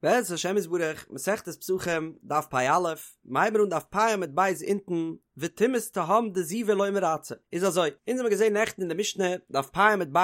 בעזרת השם יתברך, מסכת פסחים, דף פ"א, מ'הייבן אן דף פ' עמוד ב' אונטן, וטומאת תהום דזיבה לא מרצה. איז אזוי, אונז האמיר געזען נעכטן אין די משנה, דף פ' עמוד ב',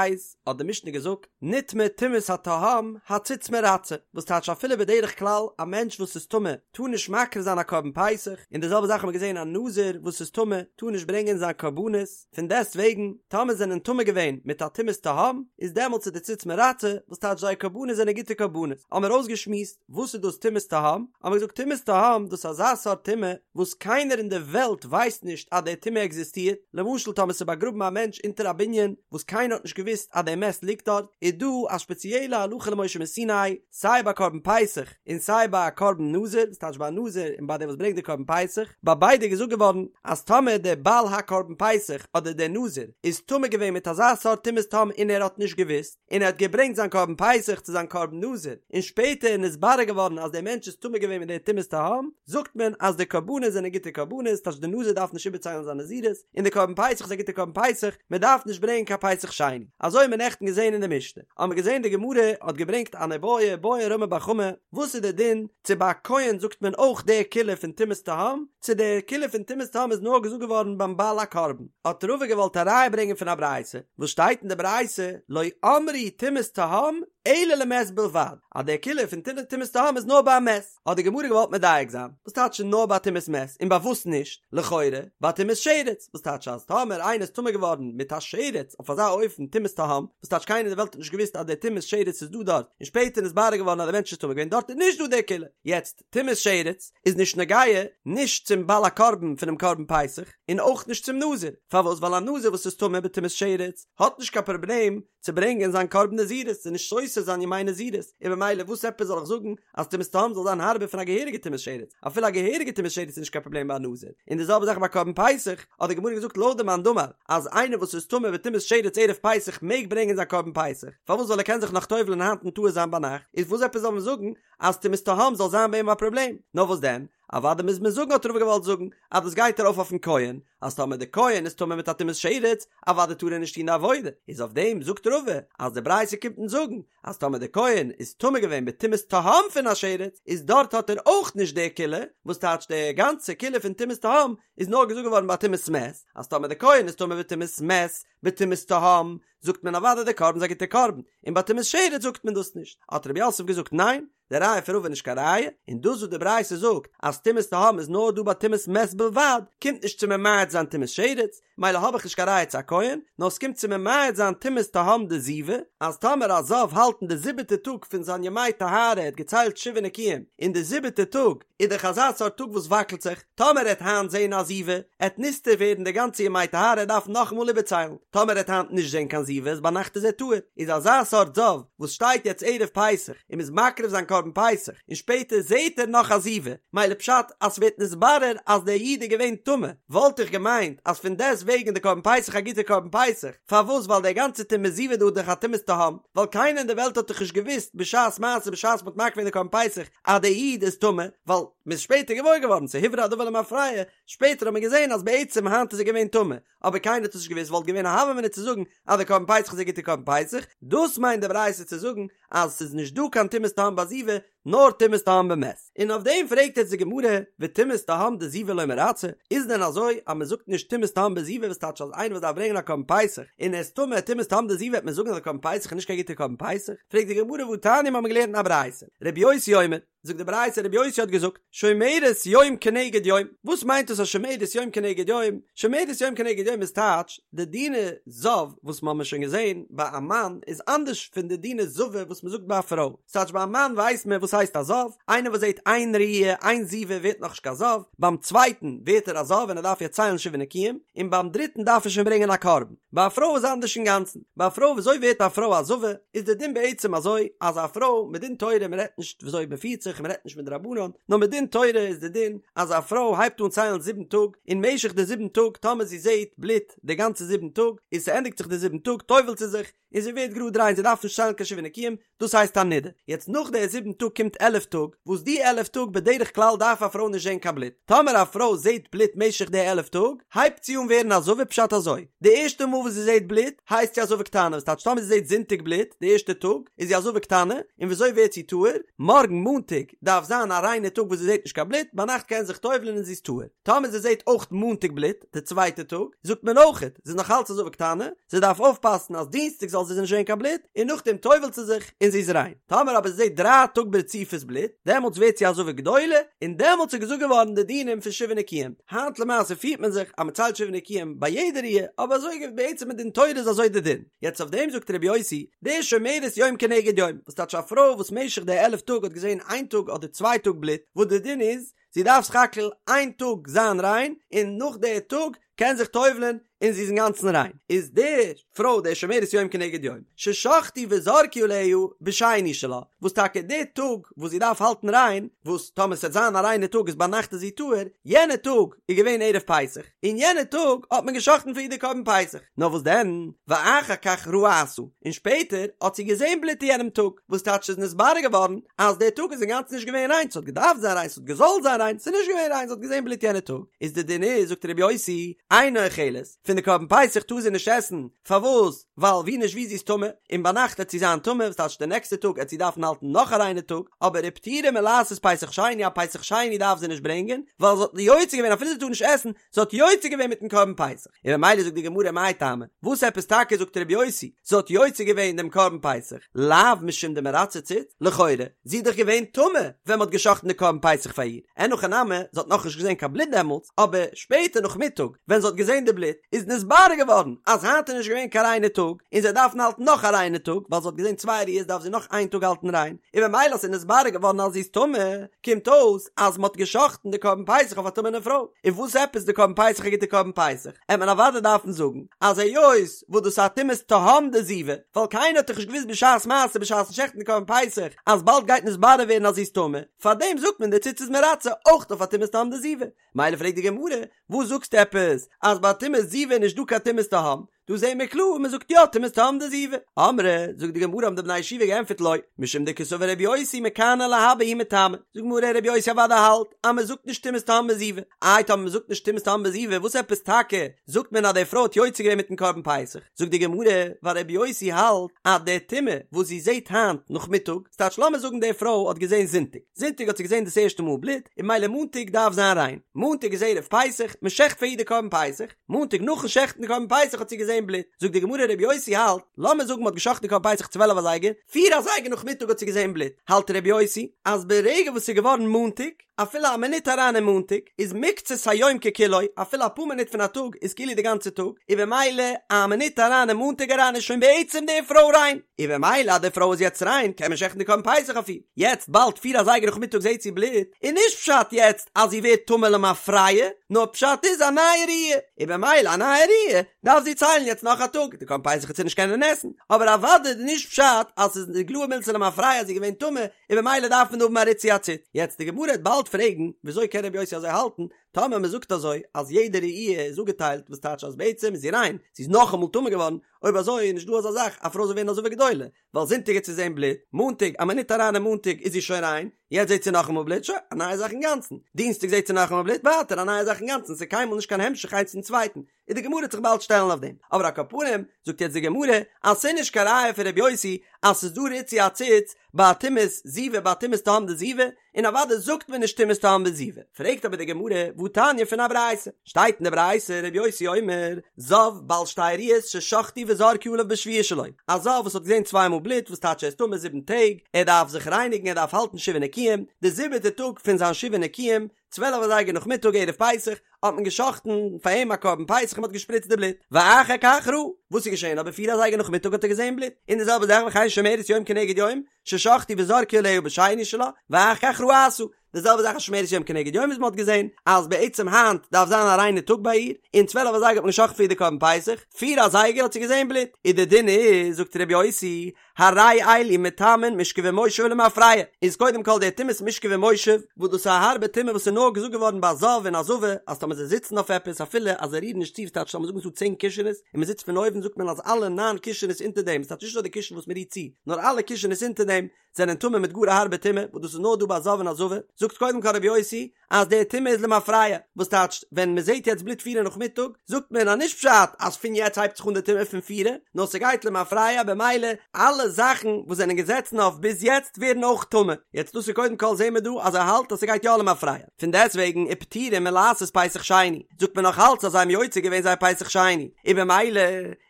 האט די משנה געזאגט, נטמא טומאת התהום, הציץ מרצה, וואס טייטש אפילו בדרך כלל א מענטש וואס איז טמא טאר נישט מקריב זיין א קרבן פסח, און די זעלבע זאך האמיר געזען א נזיר וואס איז טמא טאר נישט ברענגען זיין קרבנות, פון דעסט וועגן, טאמער זענען טמא געווען מיט א טומאת תהום, איז דעמאלטס איז די ציץ מרצה, וואס טייטש זייער קרבנות זענען גוטע קרבנות. האמיר אויסגעשמועסט וואס איז דאס טומאת תהום, האמיר געזאגט טומאת תהום דאס איז אזא סארט טומאה וואס קיינער אין די וועלט ווייסט נישט אז די טומאה עקזיסטירט, למשל טאמער ס'איז באגראבן א מענטש אונטער א בנין וואס קיינער האט נישט געוואוסט אז די מת ליגט דארט, איז דא א שפעציעלע הלכה למשה מסיני, סיי ביי קרבן פסח און סיי ביי א קרבן נזיר, וואס טייטש ביי א נזיר און ביי דער וואס ברענגט די קרבן פסח, ביי ביידע איז געזאגט געווארן אז טאמער דער בעל הקרבן פסח אדער דער נזיר איז טמא געווען מיט אזא סארט טומאת תהום און ער האט נישט געוואוסט, און ער האט געברענגט זיין קרבן פסח צו זיין קרבן נזיר, און שפעטער איז נתברר געווארן אז דער מענטש איז טמא געווען מיט דער טומאת תהום, זאגט מען אז די קרבנות זענען גוטע קרבנות, טייטש דער נזיר דארף נישט איבערציילן זיין נזירות, און די קרבן פסח איז א גוטע קרבן פסח, מען דארף נישט ברענגען קיין פסח שני. אזוי האט מען נעכטן געזען אין די משנה. האט מען געזען די גמרא האט געברענגט אן איבעיא בעי רמי בר חמא, וואס איז די דין צו ביי א כהן זאגט מען אויך די קולא פון טומאת תהום, צו די קולא פון טומאת תהום איז נאר געזאגט געווארן ביים בעל הקרבן. האט רבא געוואלט א ראיה ברענגען פון א ברייתא, וואס שטייט אין די ברייתא לא אמרו טומאת תהום אלא למת בלבד, אז די קולא פון טומאת תהום איז נאר ביי א מת. האט די גמרא געוואלט מדייק זיין, וואס טייטש נאר ביי טומאת מת און ביי וואס נישט? לכאורה ביי טומאת שרץ, וואס טייטש אז טאמער איינער איז טמא געווארן מיט א שרץ אויף אזא אופן טומאת תהום, וואס טייטש קיינער אין די וועלט האט נישט געוואוסט אז די טומאת שרץ איז דא דארט, און שפעטער איז נתברר געווארן אז די מענטש איז טמא געווען דארט איז נישט דא די קולא. יעצט, טומאת שרץ איז נישט נוגע נישט צום בעל הקרבן פונעם קרבן פסח, און אויך נישט צום נזיר, פארוואס? ווייל א נזיר וואס איז טמא בטומאת שרץ האט נישט קיין פראבלעם צו ברענגען זיין קרבן נזירות, ס'איז נישט סותר זיין ימי נזירות, און במילא וואס עפעס זאל איך זאגן אז טומאת תהום זאל זיין הארבער פון א געהעריגע טומאת שרץ, אפילו א געהעריגע טומאת שרץ איז נישט קיין פראבלעם ביי א נזיר, און די זעלבע זאך ביי קרבן פסח, האט די גמרא געזאגט לויט די מאן דאמר אז איינער וואס איז טמא בטומאת שרץ ערב פסח מעג ברענגען זיין קרבן פסח, פארוואס ווייל ער קען זיך נאך טובל'ען היינט און טהור זיין ביינאכט, איז וואס עפעס זאל מען זאגן אז טומאת תהום זאל זיין ביי אים א פראבלעם, נאר וואס דען? אוודאי מוז מען זאגן האט רבא געוואלט זאגן אז דאס גייט ארויף אויפן כהן, אז טאמער די כהן איז טמא מיט א טומאת שרץ, אוודאי טאר ער נישט טון די עבודה, איז אויף דעם זאגט רבא אז די ברייתא קומט אונז זאגן אז טאמער די כהן איז טמא געווען בטומאת תהום פון א שרץ, איז דארט האט ער אויך נישט די קולא, וואס טייטש די גאנצע קולא פון טומאת תהום איז נאר געזאגט געווארן ביי טומאת מת, אז טאמער די כהן איז טמא בטומאת מת בטומאת תהום, זאגט מען אוודאי די קרבן איז א גוטע קרבן, און ביי טומאת שרץ זאגט מען דאס נישט, האט רב יוסף געזאגט ניין, די ראיה פון רבא איז נישט קיין ראיה, און דאס וואס די ברייתא זאגט אז טומאת תהום איז נאר דא ביי טומאת מת בלבד, קומט נישט צו ממעט זיין טומאת שרץ, מילא האב איך נישט קיין ראיה צו א כהן, נאר ס'קומט צו ממעט זיין טומאת תהום דזיבה, אז טאמער א זב האלט אין די זיבעטע טאג פון זיין ימי טהרה ער האט געציילט שבעה נקיים, אין די זיבעטע טאג איז דאך אזא סארט טאג וואס וואקלט זיך, טאמער ער העט היינט זעהן א זיבה, עט נסתר ווערן די גאנצע ימי טהרה ער דארף נאכאמאל איבערציילן, טאמער ער העט היינט נישט זעהן קיין זיבה איז ביינאכט איז ער טהור, איז אזא סארט זב וואס שטייט יעצט ערב פסח און מ'איז מקריב זיין קרבן פסח און שפעטער זעהט ער נאך א זיבה, מילא פשט אז ס'ווערט נתברר אז דער איד איז געווען טמא, וואלט איך געמיינט אז פון דעסט וועגן איז די קרבן פסח א גוטע קרבן פסח, פארוואס ווייל דער גאנצע טומאת זיבה דא איז דאך א טומאת תהום, ווייל קיינער אין די וועלט האט דאך נישט געוואוסט בשעת מעשה בשעת מ'האט מקריב געווען די קרבן פסח אז דער איד איז טמא, ווייל מ'איז שפעטער געוואויר געווארן, ס'איז הוברר הדבר למפרע, שפעטער האט מען געזען אז בעצם היינט איז ער געווען טמא, אבער קיינער האט עס נישט געוואוסט, וואלט געווען א הוה אמינא צו זאגן אז די קרבן פסח איז א גוטע קרבן פסח, דאס מיינט די ברייתא צו זאגן אז ס'איז נישט דא קיין טומאת תהום ביי זיבה, נאר טומאת תהום במת. און אויף דעם פרעגט יעצט די גמרא, וטומאת תהום דזיבה לא מרצה, איז דען אזוי אז מ'זאגט נישט טומאת תהום בזיבה וואס טייטש אז איינער וואס דארף ברענגען א קרבן פסח און ער איז טמא טומאת תהום דזיבה וועט מען זאגן אז די קרבן פסח איז נישט קיין גוטע קרבן פסח? פרעגט די גמרא והתניא מ'האמיר געלערנט אין א ברייתא, רבי יוסי אומר, זאגט די ברייתא רבי יוסי האט געזאגט שומרת יום כנגד יום, וואס מיינט דאס א שומרת יום כנגד יום? שומרת יום כנגד יום איז טייטש די דיני זב וואס מ'האמיר שוין געזען ביי א מאן איז אנדערש פון די דיני זבה וואס מ'זאגט ביי א פרוי, ס'טייטש ביי א מאן ווייסט מען וואס הייסט א זב, איינער וואס זעט איין ראי' איין זיבה ווערט נאכנישט קיין זב, ביים צווייטן ווערט ער א זב און ער דארף יעצט ציילן שבעה נקיים, און ביים דריטן דארף ער שוין ברענגען א קרבן. ביי א פרוי איז אנדערש אינגאנצן, ביי א פרוי וויאזוי ווערט א פרוי א זבה, איז די דין בעצם אזוי, אז א פרוי, מדין תורה, מען רעדט נישט וויאזוי מען פירט זיך, פסח און מ'רעדט נישט מדרבנן, נאר מדין תורה איז די דין אז א פרוי הייבט אן ציילן זיבן טאג, אין משך די זיבן טאג טאמער זי זעט בלוט די גאנצע זיבן טאג, און ס'ענדיגט זיך די זיבן טאג טובל'ט זי זיך, און זי ווערט גראד ריין זי דארף נישט ציילן קיין שבעה נקיים, דאס הייסט א נידה. יעצט נאך די זיבן טאג קומט עלף טאג, וואס די עלף טאג בדרך כלל דארף א פרוי נישט זען קיין בלוט, טאמער א פרוי זעט בלוט משך די עלף טאג, הייבט זי אן ווערן א זבה פשט אזוי, די ערשטע מאל וואס זי זעט בלוט הייסט זי א זבה קטנה, וואס טייטש טאמער זי זעט זונטאג בלוט די ערשטע טאג איז זי א זבה קטנה, און וויאזוי ווערט זי טהור? מארגן מאנטאג דארף זיין א ריינע טאג וואס זי זעט נישט קיין בלוט, ביינאכט קען זי זיך טובל'ן און זי איז טהור. טאמער זי זעט אויך מאנטאג בלוט, די צווייטע טאג, זאגט מען אויכעט, זי איז נאך אלץ א זבה קטנה, זי דארף אויפפאסן אז דינסטאג זאל זי נישט זען קיין בלוט, און נאכדעם טובל'ט זי זיך און זי איז ריין. טאמער אבער זי זעט דריי טאג ברציפות בלוט, דעמאלטס ווערט זי א זבה גדולה, און דעמאלטס איז געזאגט געווארן די דינים פון שבעה נקיים. היינט למעשה פירט מען זיך אז מען ציילט שבעה נקיים ביי יעדע ראיה, אבער אזוי בעצם מדין תורה איז אזוי די דין. יעצט אויף דעם זאגט רבי יוסי, די שומרת יום כנגד יום, וואס טייטש א פרוי וואס משך די עלף טאג האט געזען איין טאג אדער צוויי טאג בלוט, וואס די דין איז, זי דארף סך הכל איין טאג זיין ריין, און נאך די טאג קען זיך טובל'ען און זי איז אינגאנצן ריין, איז די פרוי די שומרת יום כנגד יום, ששחטו וזרקו עליה בשני שלה, וואס טאקע די טאג וואס זי דארף האלטן ריין, וואס טאמער ס'וועט זיין א ריינע טאג איז ביינאכט איז זי טהור, יענע טאג איז געווען ערב פסח, און יענע טאג האט מען געשחט'ן פאר איר די קרבן פסח, נאר וואס דען, ואחר כך ראתה, און שפעטער האט זי געזען בלוט אין יענעם טאג, וואס טייטש ס'איז נתברר געווארן אז דער טאג איז אינגאנצן נישט געווען ריין, ס'האט געדארפט זיין ריין, ס'האט געזאלט זיין ריין, ס'איז נישט געווען ריין, זי האט געזען בלוט יענע טאג, איז די דין איז, זאגט רבי יוסי, אינה אוכלת, פון די קרבן פסח טאר זי נישט עסן, פארוואס? ווייל ווי נישט ווי זי איז טמא, און ביינאכט עט זי זיין טמא, וואס טייטש די נעקסטע טאג עט זי דארפן האלטן נאך א ריינע טאג, אבער ופטורה מלעשות פסח שני, א פסח שני דארף זי נישט ברענגען, ווייל זי האט יוצא געווען אפילו זי טאר נישט עסן, זי האט יוצא געווען מיטן קרבן פסח, און ממילא זאגט די גמרא מאי טעמא, וואס עפעס טאקע זאגט רבי יוסי, זי האט יוצא געווען דעם קרבן פסח, לאו משום דמרצה ציץ, לכאורה, זי איז דאך געווען טמא ווען מ'האט גע'שחט'ן די קרבן פסח פאר איר, אין הכי נמי, זי האט נאכנישט געזען קיין בלוט דעמאלטס, אבער שפעטער נאכמיטאג ווען זי האט געזען די בלוט, איז נתברר געווארן אז היינט איז נישט געווען קיין ריינע טאג, און זי דארף האלטן נאך א ריינע טאג, ווייל זי האט געזען צוויי ראיות דארף זי נאך איין טאג האלטן ריין, און ממילא אז ס'איז נתברר געווארן אז זי איז טמא, קומט אויס אז מ'האט גע'שחט'ן די קרבן פסח אויף א טמא'נע פרוי, און וואס עפעס די קרבן פסח א גוטע קרבן פסח? עט מען אוודאי דארפן זאגן אז היות וואס דאס איז א טומאת תהום דזיבה, ווייל קיינער האט דאך נישט געוואוסט בשעת מעשה בשעת'ן שעכטן די קרבן פסח אז באלד גייט נתברר ווערן אז זי איז טמא, פארדעם זאגט מען די ציץ איז מרצה אויך אויף א טומאת תהום דזיבה. מילא פרעגט די גמרא, וואס זאגסטו עפעס אז ביי טומאת זיבה איז נישט דא קיין טומאת תהום? דא זעהן מיר קלאר מען זאגט יא טומאת תהום דזיבה. אמרי, זאגט די גמרא האבן די בני ישיבה געענטפערט לא, משום דקסבר רבי יוסי מכאן ולהבא הוא מטמא. זאגט די גמרא רבי יוסי אוודאי האלט אז מען זאגט נישט טומאת תהום בזיבה. איי טאמער מען זאגט נישט טומאת תהום בזיבה וואס עפעס טאקע זאגט מען אז די פרוי האט יוצא געווען מיטן קרבן פסח? זאגט די גמרא ווייל רבי יוסי האלט אז די טומאה וואס זי זעהט היינט נאכמיטאג, ס'טייטש לאמיר זאגן די פרוי האט געזעהן זונטאג, זונטאג האט זי געזען דאס ערשטע מאל בלוט, און ממילא מאנטאג דארף זיין ריין. מאנטאג איז ערב פסח, מען שעכט פאר איר די קרבן פסח, מאנטאג נאכן שעכטן די קרבן פסח האט זי געזען בלוט. זאגט די גמרא רבי יוסי האלט, לאמיר זאגן מען האט געשאכטן די קרבן פסח צוועלף אזייגער, פיר אזייגער נאכמיטאג האט זי געזען בלוט, האלט רבי יוסי אז ברגע וואס ס'איז געווארן מאנטאג, אפילו א מינוט אריין אין מאנטאג, איז מקצת היום ככולו, אפילו אפאר מינוט פון א טאג איז כאילו די גאנצע טאג, און במילא א מינוט אריין אין מאנטאג אריין איז שוין בעצם די פרוי ריין, און במילא אז די פרוי איז יעצט ריין קען מען שעכטן די קרבן פסח אויף איר, יעצט באלד פיר אזייגער נאכמיטאג זעהט זי בלוט, איז נישט פשט יעצט אז זי ווערט טמא למפרע, נאר פשט איז א נייע ראיה, און במילא א נייע ראיה דארף זי ציילן יעצט נאך א טאג, די קרבן פסח וועט זי נישט קענען עסן, אבער אוודאי איז נישט פשט אז ס'איז איגלאי מילתא למפרע אז זי איז געווען טמא, און במילא דארף מען האבן א ריצוי הציץ. יעצט די גמרא וועט באלד פרעגן, וויאזוי קען רבי יוסי אזוי האלטן, טאמער מען זאגט אזוי אז יעדע ראי' איז אפגעטיילט וואס טייטש אז בעצם איז זי ריין, זי איז נאכאמאל טמא געווארן, אויב אזוי איז נישט דא אזא זאך א פרוי זאל ווערן א זבה גדולה, ווייל זונטאג האט זי געזען בלוט, מאנטאג א מינוט אריין אין מאנטאג איז זי שוין ריין, יעצט זעט זי נאכאמאל בלוט, שוין, א נייע זאך אינגאנצן, דינסטאג זעט זי נאכאמאל בלוט, ווייטער א נייע זאך אינגאנצן, ס'איז קיינמאל נישט קיין המשך איינס צום צווייטן, און די גמרא וועט זיך באלד שטעלן אויף דעם, אבער על כל פנים זאגט יעצט די גמרא אז ס'איז נישט קיין ראיה פון ר' יוסי אז ס'איז דא ריצוי הציץ ביי טומאת זיבה ביי טומאת תהום דזיבה, און אוודאי זאגט מען נישט טומאת תהום בזיבה. פרעגט אבער די גמרא והתניא פון א ברייתא, שטייט אין די ברייתא ר' יוסי אומר, זב בעל שתי ראיות ששחטו וזרקו עליו בשביעי שלו, א זב וואס האט געזען צוויי מאל בלוט וואס טייטש ער איז טמא זיבן טעג, ער דארף זיך רייניגן ער דארף האלטן שבעה נקיים, די זיבעטע טאג פון זיין שבעה נקיים, צוועלף אזייגער נאכמיטאג ערב פסח האט מען געשחט'ן פאר אים א קרבן פסח און מען האט געשפריצט די בלוט, ואחר כך ראה, וואס איז געשען אבער פיר אזייגער נאכמיטאג האט ער געזען בלוט, און די זעלבע זאך וכן שומרת יום כנגד יום, ששחטו וזרקו עליה בשני שלה, ואחר כך ראתה, די זעלבע זאך א שומרת יום כנגד יום וואס מען האט געזען אז בעצם היינט דארף זיין א ריינע טאג ביי איר, און צוועלף אזייגער האט מען געשחט'ן פאר איר די קרבן פסח, פיר אזייגער האט זי געזען בלוט, און די דין איז, זאגט ר' יוסי, הרי אלו מטמאין משכב ומושב למפרע, איז קודם כל די טומאת משכב ומושב, וואס דאס איז א הארבע טומאה וואס איז נאר געזאגט געווארן ביי א זב און א זבה, אז טאמער זיי זיצן אויף עפעס אפילו אז זיי רירן נישט צו, ס'טייטש לאמיר זאגן ס'דא צען קישענעס און מען זיצט פון אויבן זאגט מען אז אלע ניין קישענעס אונטער דעם, ס'טייטש נישט נאר די קישן וואס מען רירט צו, נאר אלע קישענעס אונטער דעם זענען טמא מיט גאר א הארבע טומאה, וואס דאס איז נאר דא ביי א זב און א זבה, זאגט קודם כל רבי יוסי אז די טומאה איז למפרע, וואס טייטשט ווען מען זעט יעצט בלוט פירע נאכמיטאג, זאגט מען אז נישט פשט אז פון יעצט הייבט זיך אן די טומאה פון פירע, נאר ס'גייט למפרע במילא אלע זאכן וואס זענען געזעצן אויף ביז יעצט ווערן אויך טמא, יעצט דאס איז קודם כל זעהן מיר דא אז ער האלט אז ס'גייט יא למפרע, פון דעסטוועגן ופטורין מלעשות פסח שני, זאגט מען נאך אלץ אז זיי האבן יוצא געווען זייער פסח שני, און במילא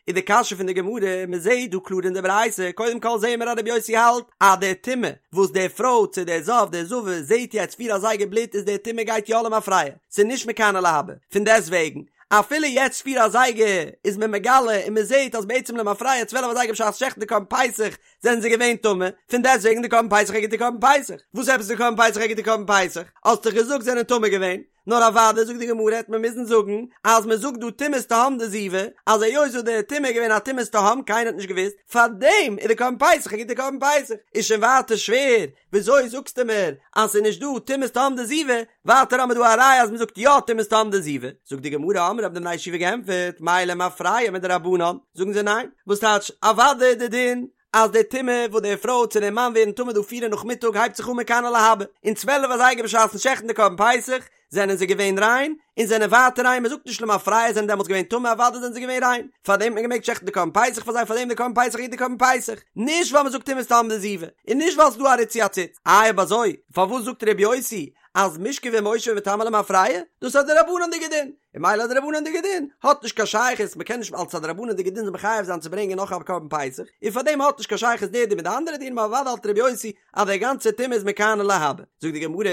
איז די קשיא פון די גמרא, מען זעהט דא קלאר אין די ברייתא, קודם כל זעהן מיר אז רבי יוסי האלט אז די טומאה וואס די פרוי צו די זב די זבה זעהט יעצט פיר אזייגער בלוט איז די טומאה גייט יא למפרע, ס'איז נישט מכאן ולהבא, פון דעסט וועגן אפילו יעצט פיר אזייגער איז מען מגלה און מען זעהט אז בעצם למפרע צוועלף אזייגער בשעת שעכטן די קרבן פסח זענען זיי געווען טמא, פון דעסט וועגן די קרבן פסח א גוטע קרבן פסח, וואס עפעס די קרבן פסח א גוטע קרבן פסח? האסט דאך געזאגט זענען טמא געווען. נאר אוודאי זאגט די גמרא העט מען מוזן זאגן אז מען זאגט דא טומאת תהום דזיבה אז היות וואס די טומאה איז געווען א טומאת תהום קיינער האט נישט געוואוסט פארדעם איז די קרבן פסח א גוטע קרבן פסח איז שוין ווייטער שווער וויאזוי זאגסטו מיר אז ס'איז נישט דא טומאת תהום דזיבה ווייטער האמיר דא א ראיה אז מען זאגט יא טומאת תהום דזיבה זאגט די גמרא אמרי האבן די בני ישיבה געענטפערט מאי למפרע מדרבנן זאגן זיי ניין וואס טייטש אוודאי איז די דין אז די טומאה וואס די פרוי צו די מאן ווערן טמא דא פירע נאכמיטאג הייבט זיך אן מכאן ולהבא, און צוועלף אזייגער בשעת'ן שעכטן די קרבן פסח זענען זיי געווען ריין, און זענען ווייטער ריין, מען זאגט נישט למפרע זענען דעמאלטס געווען טמא אוודאי זענען זיי געווען ריין, פארדעם האט מען געמעגט שעכטן די קרבן פסח פאר זיי פארדעם די קרבן פסח איז די קרבן פסח, נישט ווייל מען זאגט טומאת תהום דזיבה, און נישט ווייל ס'איז דא א ריצוי הציץ, איי אויב אזוי פארוואס זאגט ר' יוסי אז משכב ומושב מטמא למפרע, דאס איז א דרבנן'דיגע דין, און ממילא א דרבנן'דיגע דין האט נישט קיין שייכות, מ'קען נישט אלס א דרבנן'דיגע דין זיך מחייב זיין צו ברענגען נאך א קרבן פסח, און פארדעם האט נישט קיין שייכות דער דין מיט די אנדערע דינים, אבער אוודאי האלט ר' יוסי אז דער גאנצע טומאה איז מכאן ולהבא. זאגט די גמרא,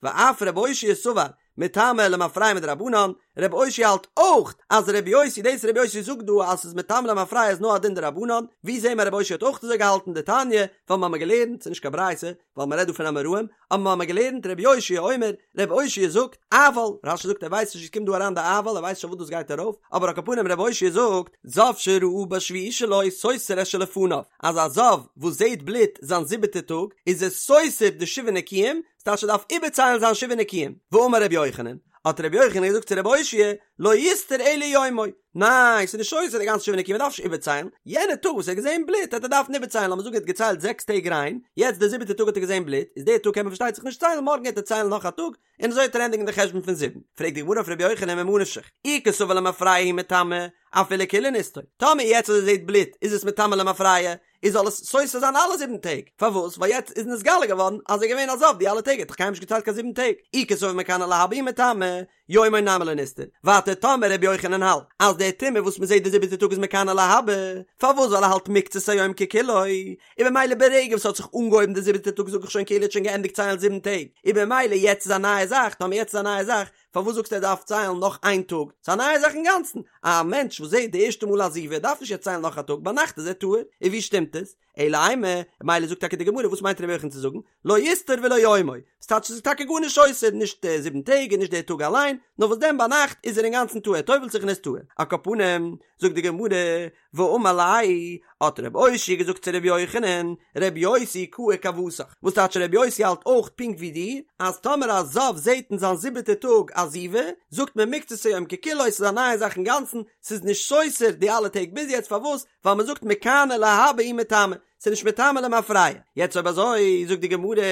ואף ר' אושעיא סבר מטמא למפרע מדרבנן, ר' אושעיא האלט אויך אז ר' יוסי דאס ר' יוסי זאגט דא אז ס'איז מטמא למפרע איז נאר א דין דרבנן, ווי זעהן מיר ר' אושעיא האט אויך אזוי געהאלטן דתניא, ווייל מ'האמיר געלערנט, ס'איז נישט קיין ברייתא, ווייל מ'רעדט דא פון אמוראים, אבער מ'האמיר געלערנט רבי אושעיא אומר, רבי אושעיא זאגט, אבל, רש"י זאגט ער ווייסט נישט ווי ס'קומט דא אריין די אבל, ער ווייסט נישט אויף וואס דאס גייט ארויף, אבער על כל פנים רבי אושעיא זאגט, זב שראה בשביעי שלו סותר את שלפניו, אז א זב וואס זעהט בלוט זיין זיבעטע טאג, איז ער סותר די שבעה נקיים, ס'טייטש ער דארף איבערציילן זיין שבעה נקיים, ואמר רבי יוחנן, האט רבי יוחנן געזאגט צו רבי אושעיא, לא יסתור אלא יומו, ניין, ס'איז נישט סותר די גאנצע שבעה נקיים, מ'דארף נישט איבערציילן, יענע טאג וואס ער האט געזען בלוט העט ער דארפן איבערציילן, לאמיר זאגן ער האט געציילט זעקס טעג ריין, יעצט די זיבעטע טאג האט ער געזען בלוט, איז די טאג קען מען פארשטייט זיך נישט ציילן, מארגן העט ער ציילן נאך א טאג, און אזוי העט ער ענדיגן די חשבון פון זיבן. פרעגט די גמרא אויף ר' יוחנן ממה נפשך, אי קסבר למפרע הוא מטמא, אפילו כולהו נסתור, טאמער יעצט אז ער זעט בלוט איז עס מטמא למפרע, איז זאל עס סותר זיין אלע זיבן טעג, פארוואס? ווייל יעצט איז נתגלה געווארן אז ער איז געווען א זב די אלע טעג, ער האט דאך קיינמאל נישט געציילט קיין זיבן טעג, אי קסבר מכאן ולהבא הוא מטמא, יומו נמי לא נסתור, ווייטער טאמער רבי יוחנן האלט אז די טומאה וואס מ'זעט די זיבעטע טאג איז מכאן ולהבא, פארוואס ווייל ער האלט מקצת היום ככולו, און במילא ברגע וואס ס'האט זיך אנגעהויבן די זיבעטע טאג זאג איך שוין כאילו ער האט שוין געענדיגט ציילן זיבן טעג, און במילא יעצט איז א נייע זאך, טאמער יעצט איז א נייע זאך, פארוואס זאגסטו ער דארף ציילן נאך איין טאג? ס'איז א נייע זאך אינגאנצן, א מענטש וואס זעט די ערשטע מאל א זיבה דארף נישט יעצט ציילן נאך א טאג, ביינאכט איז ער טהור, און ווי שטימט עס? אלא אימא, מילא זאגט טאקע די גמרא וואס מיינט רבי יוחנן צו זאגן, לא יסתור ולא יומו, ס'טייטש ס'איז טאקע גארנישט סותר, נישט די זיבן טעג און נישט די טאג אליין, נאר וואס דען ביינאכט איז ער אינגאנצן טהור, ער טובל'ט זיך און איז טהור. על כל פנים, זאגט די גמרא, ואמר ליה, האט רבי אושעיא געזאגט צו רבי יוחנן, רבי יוסי קאי כוותך, וואס טייטש רבי יוסי האלט אויך פונקט ווי דיר, אז טאמער א זב זעט אין זיין זיבעטע טאג א זיבה, זאגט מען מקצת היום ככולו, ס'איז א נייע זאך אינגאנצן, ס'איז נישט סותר די אלע טעג ביז יעצט, פארוואס? ווייל מען זאגט מכאן ולהבא הוא מטמא, ס'איז נישט מטמא למפרע. יעצט אויב אזוי, זאגט די גמרא,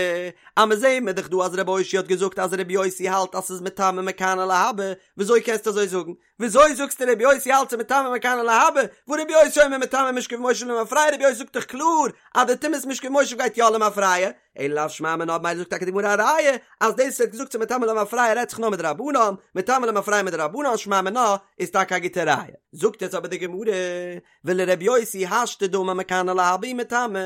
אז מען זעהן מיר דאך דא אז רבי אושעיא האט געזאגט אז רבי יוסי האלט אז ס'איז מטמא מכאן ולהבא, וויאזוי קענסטו אזוי זאגן? וויאזוי זאגסטו רבי יוסי האלט ס'איז מטמא מכאן ולהבא, והא רבי יוסי אומר מטמא משכב ומושב למפרע, רבי יוסי זאגט דאך קלאר אז די טומאת משכב ומושב גייט יא למפרע, אלא לאו שמע מינה, מילא זאגט טאקע די גמרא א ראיה אז דאס וואס ער האט געזאגט ס'איז מטמא למפרע רעדט זיך נאר מדרבנן, מטמא למפרע מדרבנן שמע מינה איז טאקע א גוטע ראיה. זאגט יעצט אבער די גמרא, ולר' יוסי השתא דאמר מכאן ולהבא הוא מטמא,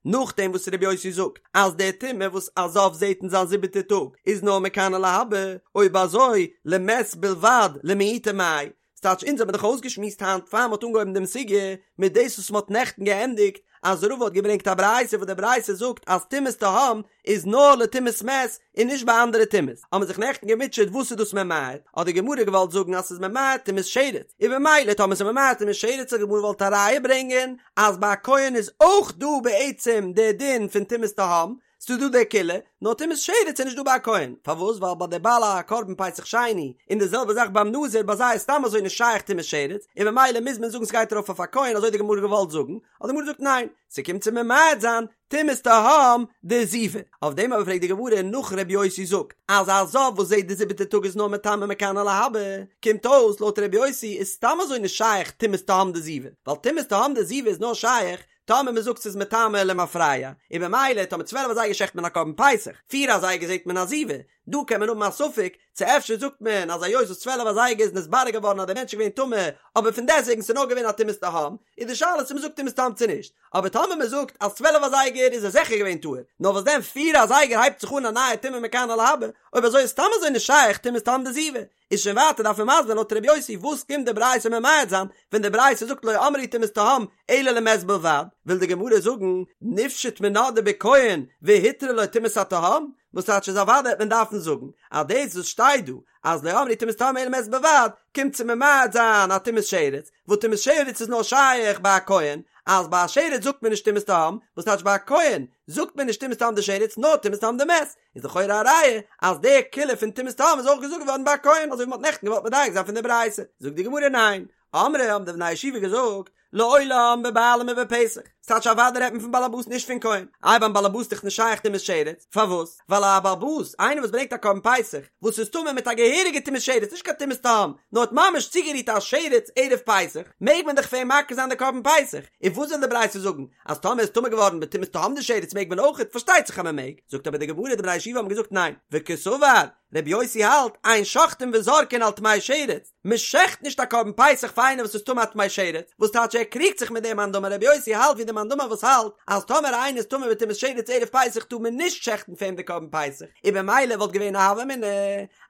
נאכדעם וואס ר' יוסי זאגט אז די טומאה וואס א זב זעט אין זיין זיבעטע טאג איז נאר מכאן ולהבא, אויב אזוי למת בלבד למעוטי מאי, ס'טייטש אונז האבן דאך אויסגעשמועסט היינט פאר מ'האט אנגעהויבן דעם סוגיא מיט דאס וואס מ'האט נעכטן געענדיגט. אז רבא האט געברענגט א ברייתא וואס די ברייתא זאגט אז טומאת תהום איז נאר לטומאת מת און נישט ביי אנדערע טומאות, האבן מיר זיך נעכטן געמוטשעט וואס איז דאס ממעט, האט די גמרא געוואלט זאגן אז ס'איז ממעט טומאת שרץ, און במילא טאמער ס'איז ממעט טומאת שרץ האט די גמרא געוואלט א ראיה ברענגען אז ביי א כהן איז אויך דא בעצם די דין פון טומאת תהום, ס'איז דא די קולא, נאר טומאת שרץ איז נישט דא ביי א כהן, פארוואס? ווייל ביי די בעל הקרבן פסח שני, און די זעלבע זאך ביים נזיר, ביי זיי איז סתם אזוי נישט שייך טומאת שרץ, און במילא מוז מען זאגן ס'גייט ארויף אויף א כהן, אזוי האט די גמרא געוואלט זאגן, האט די גמרא געזאגט ניין, ס'קומט צו ממעט זיין טומאת תהום דזיבה, אויף דעם אבער פרעגט די גמרא נאך ר' יוסי זאגט אז א זב וואס זעט די זיבעטע טאג איז נאר מטמא מכאן ולהבא, קומט אויס לויט ר' יוסי איז סתם אזוי נישט שייך טומאת תהום דזיבה, ווייל טומאת תהום דזיבה איז נאר שייך טאמער מען זאגט ס'איז מטמא למפרע, און במילא טאמער צוועלף אזייגער שעכט מען א קרבן פסח, פיר אזייגער זעט מען א זיבה, דא קען מען האבן א ספק צו אפשר זאגט מען אז היות וואס צוועלף אזייגער איז נתברר געווארן אז דער מענטש איז געווען טמא, אבער פון דעסטוועגן ס'איז נאר געווען א טומאת תהום, איז די שאלה צו מ'זאגט טומאת תהום צו נישט, אבער טאמער מ'זאגט אז צוועלף אזייגער איז ער זיכער געווען טהור, נאר וואס דען פיר אזייגער הייבט זיך אן א נייע טומאה מכאן ולהבא, אויב אזוי איז סתם אזוי נישט שייך טומאת תהום דזיבה, איז שוין ווייטער דארף מען מסביר זיין לויט ר' יוסי וואס קומט די ברייתא ממעט זיין ווען די ברייתא זאגט לא אמרו טומאת תהום אלא למת בלבד, וויל די גמרא זאגן נפשוט מינה דבכהן והותרה לו טומאת התהום, וואס טייטש איז אוודאי וועט מען דארפן זאגן אז דאס וואס שטייט דא אז לא אמרו טומאת תהום אלא למת בלבד קומט צו ממעט זיין א טומאת שרץ, וואס טומאת שרץ איז נאר שייך ביי א כהן, אז ביי א שרץ זאגט מען נישט טומאת תהום, וואס טייטש ביי א כהן זאגט מען נישט טומאת תהום דשרץ נאר טומאת תהום דמת, איז לכאורה א ראיה אז די קולא פון טומאת תהום איז אויך געזאגט געווארן ביי א כהן אזוי ווי מ'האט נעכטן געוואלט מדייק זיין פון די ברייתא, זאגט די גמרא ניין, אמרי האבן די בני הישיבה געזאגט לעולם בבעלים ובפסח, ס'טייטש אוודאי רעדט מען פון באלעבאס נישט פון כהן, איי ביים באלעבאס איז דאך נישט שייך טומאת שרץ, פארוואס? ווייל א באלעבאס, איינער וואס ברענגט א קרבן פסח, וואס איז טמא מיט א געהעריגע טומאת שרץ, נישט קיין טומאת תהום, נאר האט ממש צוגערירט א שרץ ערב פסח, מעג מען דאך פאר אים מקריב זיין די קרבן פסח, און וואס וויל די ברייתא זאגן? אז טאמער איז טמא געווארן בטומאת תהום דשרץ מעג מען אויכעט, פארשטייט זיך אז מען מעג, זאגט אבער די גמרא די בני הישיבה האבן געזאגט ניין, וקסבר, רבי יוסי האלט, אין שוחטין וזורקין על טמא שרץ, מען שעכט נישט א קרבן פסח פאר איינער וואס איז טמא א טמא שרץ, וואס טייטש ער קריגט זיך מיט דעם מאן דאמר רבי יוסי האלט ווי די מאן דאמר וואס האלט אז טאמער איינער איז טמא בטומאת שרץ ערב פסח טאר מען נישט שעכטן פאר אים די קרבן פסח, און במילא וואלט געווען א הוה אמינא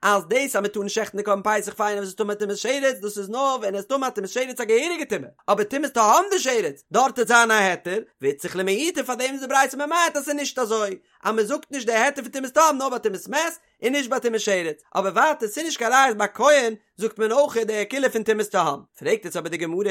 אז דאס אז מען טאר נישט שעכטן די קרבן פסח פאר איינער וואס איז טמא טומאת שרץ דאס איז נאר ווען ער איז טמא טומאת שרץ א געהעריגע טומאה, אבער טומאת תהום דשרץ דארט וועט זיין א היתר, ואיצטריך למעוטי פאר דעם איז די ברייתא ממעט אז ס'איז נישט אזוי אז מען זאגט נישט די היתר פון טומאת תהום נאר ביי טומאת מת, און נישט ביי טומאת שרץ, אבער ווייטער ס'איז נישט קיין ראיה אז ביי כהן זאגט מען אויך די קולא פון טומאת תהום. פרעגט יעצט אבער די גמרא,